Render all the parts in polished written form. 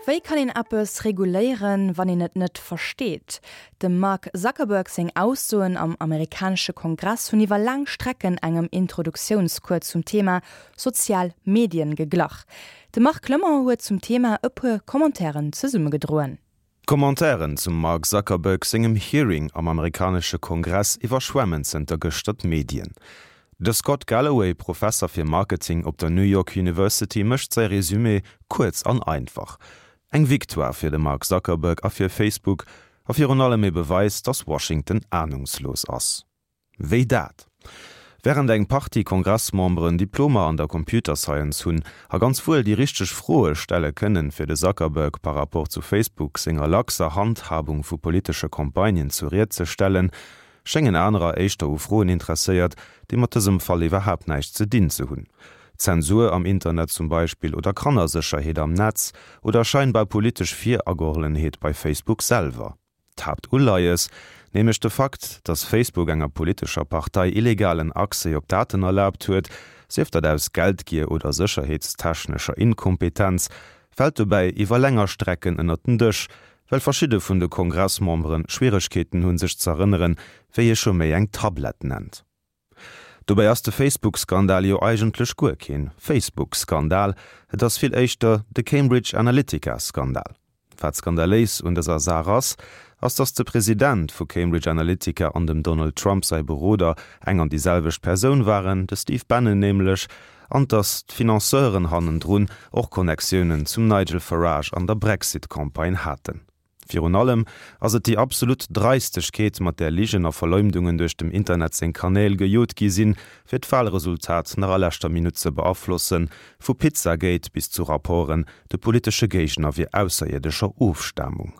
Wéi kann een eppes reguléieren, wann een et net versteet? Dem Mark Zuckerberg seng Aussoen am amerikanesche Kongress hunn iwwer laang Strecken engem Introduktiounscours zum Thema sozial Medien geglach. De Marc Clement huet zum Thema e puer Commentairen zesummegedroen. D'Commentairen zum Mark Zuckerberg sengem Hearing am amerikanesche Kongress iwwerschwemmen zënter gëschter d'Medien. De Scott Galloway, Professer fir Marketing op der New York University mécht säi Resumé kuerz an einfach, Eng Victoire fir de Mark Zuckerberg a fir Facebook a virun allem ee Beweis, datt Washington anungslos ass. Wéi dat? Wärend eng Partie Kongressmemberen Diplomer an der Computer Science hunn a ganz wuel déi richteg Froe stelle kënnen, fir de Zuckerberg par rapport zu Facebook senger laxer Handhabung vu politesche Campagnen zur Ried ze stellen, schéngen anerer éischter u Froen interesséiert, déi mat dësem Fall iwwerhaapt näischt ze dinn ze hunn. Zensur am Internet zum Beispill oder Kannersécherheet am Netz oder scheinbar politesch Viragehollenheet bei Facebook selwer. D'Haaptuleies, nämlech de Fakt, datt Facebook enger politescher Partei illegalen Accès op Daten erlaabt huet, sief dat aus Geldgier oder sécherheetstechnescher Inkompetenz, fält dobäi iwwer länger Strecken ënnert den Dësch, well verschidde vun de Kongressmembere Schwieregkeeten hunn, sech z'erënneren, wéi ee scho méi eng Tablett nennt. Dobäi ass de Facebook-Skandal jo eigentlech guer keen Facebook-Skandal, et ass vill éischter de Cambridge Analytica-Skandal. Wat skandaléis un dëser Saach ass, ass datt de President vu Cambridge Analytica an dem Donald Trump säi Beroder eng an déi selwecht Persoun waren, de Steve Bannon nämlech, an datt d'Financeuren hannendrun och Connectiounen zum Nigel Farage an der Brexit-Campagne haten. Virun allem ass et déi absolut Dreistegkeet, mat där Ligen a Verleumdungen duerch dem Internet seng Kanäl gejot gi sinn, fir d'Wahlresultat nach a leschter Minutt ze beaflossen, vu Pizzagate bis zu Rapporten, de politesche Géigner wier ausserierdescher Ofstamung.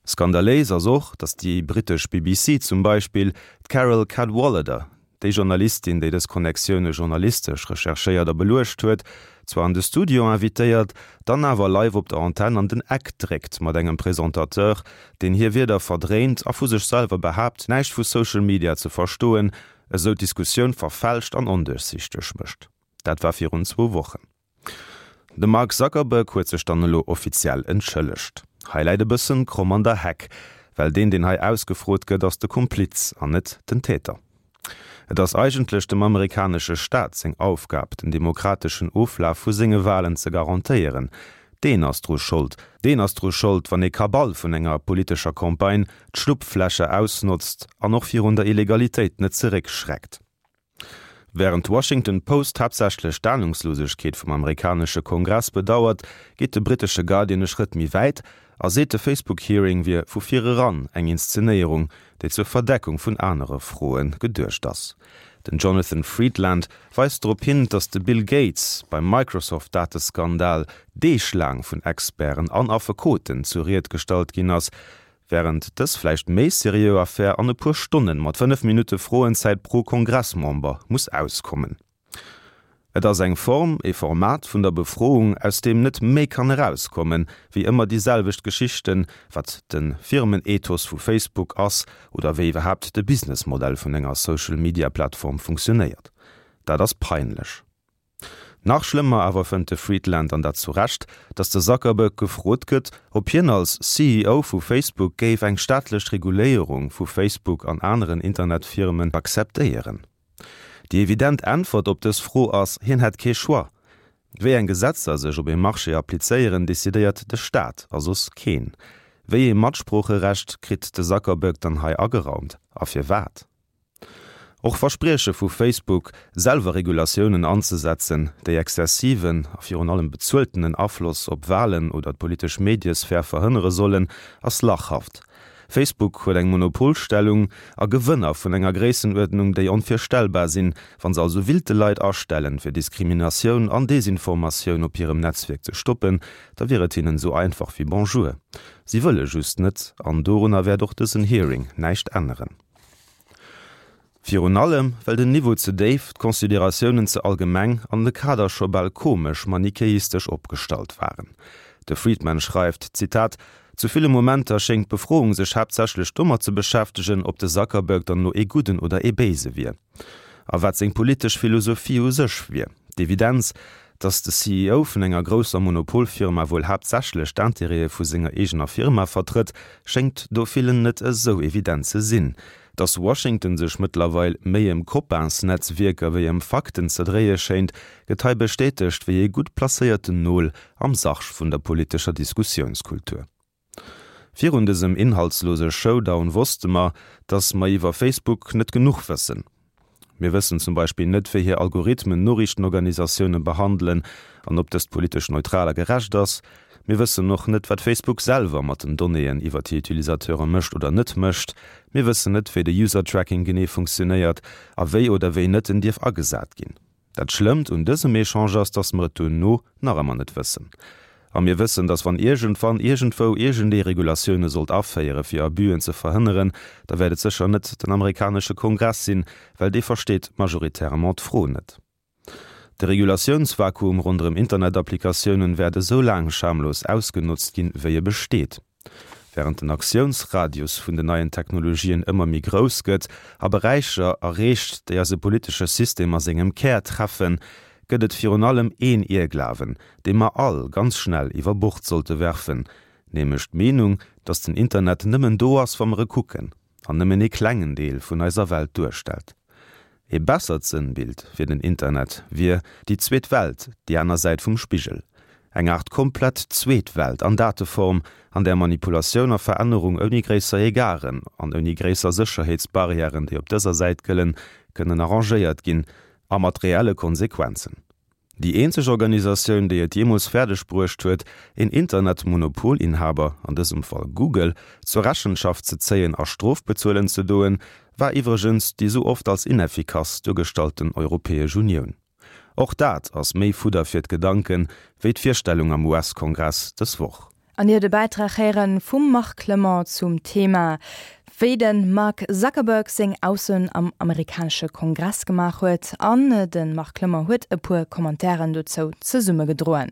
Skandaléis ass och, datt déi brittesch BBC zum Beispill d'Carole Cadwalladr, Déi Journalistin, déi dës Connectioune journalistesch recherchéiert a beluecht huet, zwar an de Studio invitéiert, dann awer live op der Antenn an den Eck dréckt mat engem Presentateur, deen hir Wierder verdréint a vu sech selwer behaapt, näischt vu Social Media ze verstoen, esou d'Diskussioun verfälscht an onduerchsichteg mécht. Dat war virun zwou Wochen. De Mark Zuckerberg huet sech dann elo offiziell entschëllegt. Hei läit e bëssen kromm an der Heck, well deen deen hei ausgefrot gëtt ass de Kompliz an net den Täter. Et ass eigentlech dem amerikanesche Staat seng Aufgab den demokrateschen Oflaf vu senge Walen ze garantéieren. Deen ass dru Schold. Deen ass dru Schold wann ee Kabal vun enger politescher Campagne d'Schlupflächer ausnotzt an och virun der Illegalitéit net zeréckschreckt. Wärend d'Washington Post haaptsächlech d'Anungslosegkeet vum amerikanesche Kongress bedauert, geet de brittesche Guardian e Schrëtt méi wäit a seet, de Facebook-Hearing wier vu vir eran eng Inszenéierung, déi zur Verdeckung vun anere Froe geduecht ass. Den Jonathan Freedland weist drop hin, datt de Bill Gates beim Microsoft-Dateskandal deeglaang vun Experten an Affekoten zur Ried gestallt ginn ass, Wärend dës vläicht méi seriö Affär an e puer Stonnen mat 5 Minutte Froenzäit pro Kongressmember muss auskommen. Et ass eng Form, ee Format vun der Befroung, aus deem net méi kann erauskommen, wéi ëmmer déi selwecht Geschichten, wat de Firmenethos vu Facebook ass oder wéi iwwerhaapt de Businessmodell vun enger Social-Media-Plattform funktionéiert. Dat ass peinlech. Nach schlëmmer awer fënnt de Friedland, an dat zu Recht, datt de Zuckerberg gefrot gëtt, ob hien als CEO vu Facebook géif eng staatlech Reguléierung vu Facebook an aneren Internetfirmen akzeptéieren. Déi evident Äntwert op dës Fro ass, hien hätt kee Choix. Wéi eng Gesetzer sech op ee Marché applizéieren, decidéiert de Staat a soss keen. Wéi ee Matsproocherecht kritt de Zuckerberg dann hei ageraumt a firwat? Och Versprieche vu Facebook, selwer Regulatiounen anzesetzen, déi exzessiven a virun allem bezueltenen Afloss op Walen oder d'politesch Mediesphär verhënnere sollen, ass lachhaft. Facebook huet eng Monopolstellung a Gewënner vun enger Gréissenuerdnung, déi onvirstellbar sinn. Wa se also willte Leit astellen, fir Diskriminatioun an Desinformatioun op hirem Netzwierk ze stoppen, da wier et hinnen esou einfach wéi Bonjour. Si wëlle just net, an dorunner wäert och dësen Hearing näischt änneren. Virun allem, well den Niveau ze déif, d'Consideratiounen ze allgemeng an de Kader scho bal komesch manichäistesch opgestallt waren. De Friedman schreift, Zitat, Zu ville Momenter schéngt d'Befroung sech haaptsächlech domat ze beschäftegen, ob de Zuckerberg dann elo ee Gudden oder ee Béise wier a wat seng politesch Philosophie u sech wier. D'Evidenz, Datt de CEO vun enger grousser Monopolfirma wuel haaptsächlech d'Intérêtë vu senger eegener Firma vertrëtt, schéngt do villen net esou evident ze sinn. Datt Washington sech mëttlerweil méi ëm Copains-Netzwierker wéi ëm Fakten ze dréie schéint, gëtt hei bestätegt wéi ee gutt placéierten Nol am Sarg vun der politescher Diskussiounskultur. Virun dësem inhaltslose Showdown wosste mer, datt mer iwwer Facebook net genuch wëssen. Mir wëssen zum Beispill net, wéi hir Algorithmen Noriichtenorganisatioune behandelen an ob dëst politesch neutral a gerecht ass. Mir wëssen och net, wat Facebook selwer mat den Donnéeën iwwer hir Utilisateure mécht oder net mécht. Mir wëssen net, wéi de User-Tracking genee funktionéiert a wéi oder wéi net en dierf agesat ginn. Dat Schlëmmt un dësem Echange ass, dass mer et duerno nach ëmmer net wëssen. A mir wëssen, dass wann iergendwann iergendwou iergendee Regulatioune sollt aféiere fir Abüen ze verhënneren, da wäert et sécher net den amerikanesche Kongress sinn, well dee versteet majoritairement d'Fro net. De Regulatiounsvakuum ronderëm Internetapplikatiounen wäert esou laang schamlos ausgenotzt ginn, wéi e besteet. Wärend den Aktiounsradius vun den neien Technologien ëmmer méi grouss gëtt a Beräicher erreecht, déi eise politesche System a sengem Kär treffen, gëtt et virun allem een Ierglawen, dee mer all ganz schnell iwwer Bord sollte werfen, nämlech d'Meenung, datt den Internet nëmmen do ass, wa mer e kucken, an nëmmen ee klengen Deel vun eiser Welt duerstellt. Ee bessert Sënnbild fir den Internet wier déi zweet Welt, déi aner Säit vum Spigel. Eng Aart komplett zweet Welt an Dateform, an där Manipulatioun a Verännerung ouni gréisser Egarden an ouni gréisser Sécherheetsbarrièren, déi op dëser Säit gëllen, kënnen arrangéiert ginn, a mat reelle Konsequenzen. Déi eenzeg Organisatioun, déi et jeemools fäerdeg bruecht huet, een Internet-Monopolinhaber, an dësem Fall Google, zur Rechenschaft ze zéien a Strof bezuelen ze doen, war iwwregens déi sou oft als ineffikass duergestallten Europäesch Unioun. Och dat ass méi Fudder fir d'Gedanken, wéi d'Virstellung am US-Kongress dës Woch. An Dir huet e Bäitrag héieren vum Marc Clement zum Thema, wéi de Mark Zuckerberg seng Aussoen am amerikanesche Kongress gemaach huet. An de Marc Clement huet e puer Commentairen dozou zesummegedroen.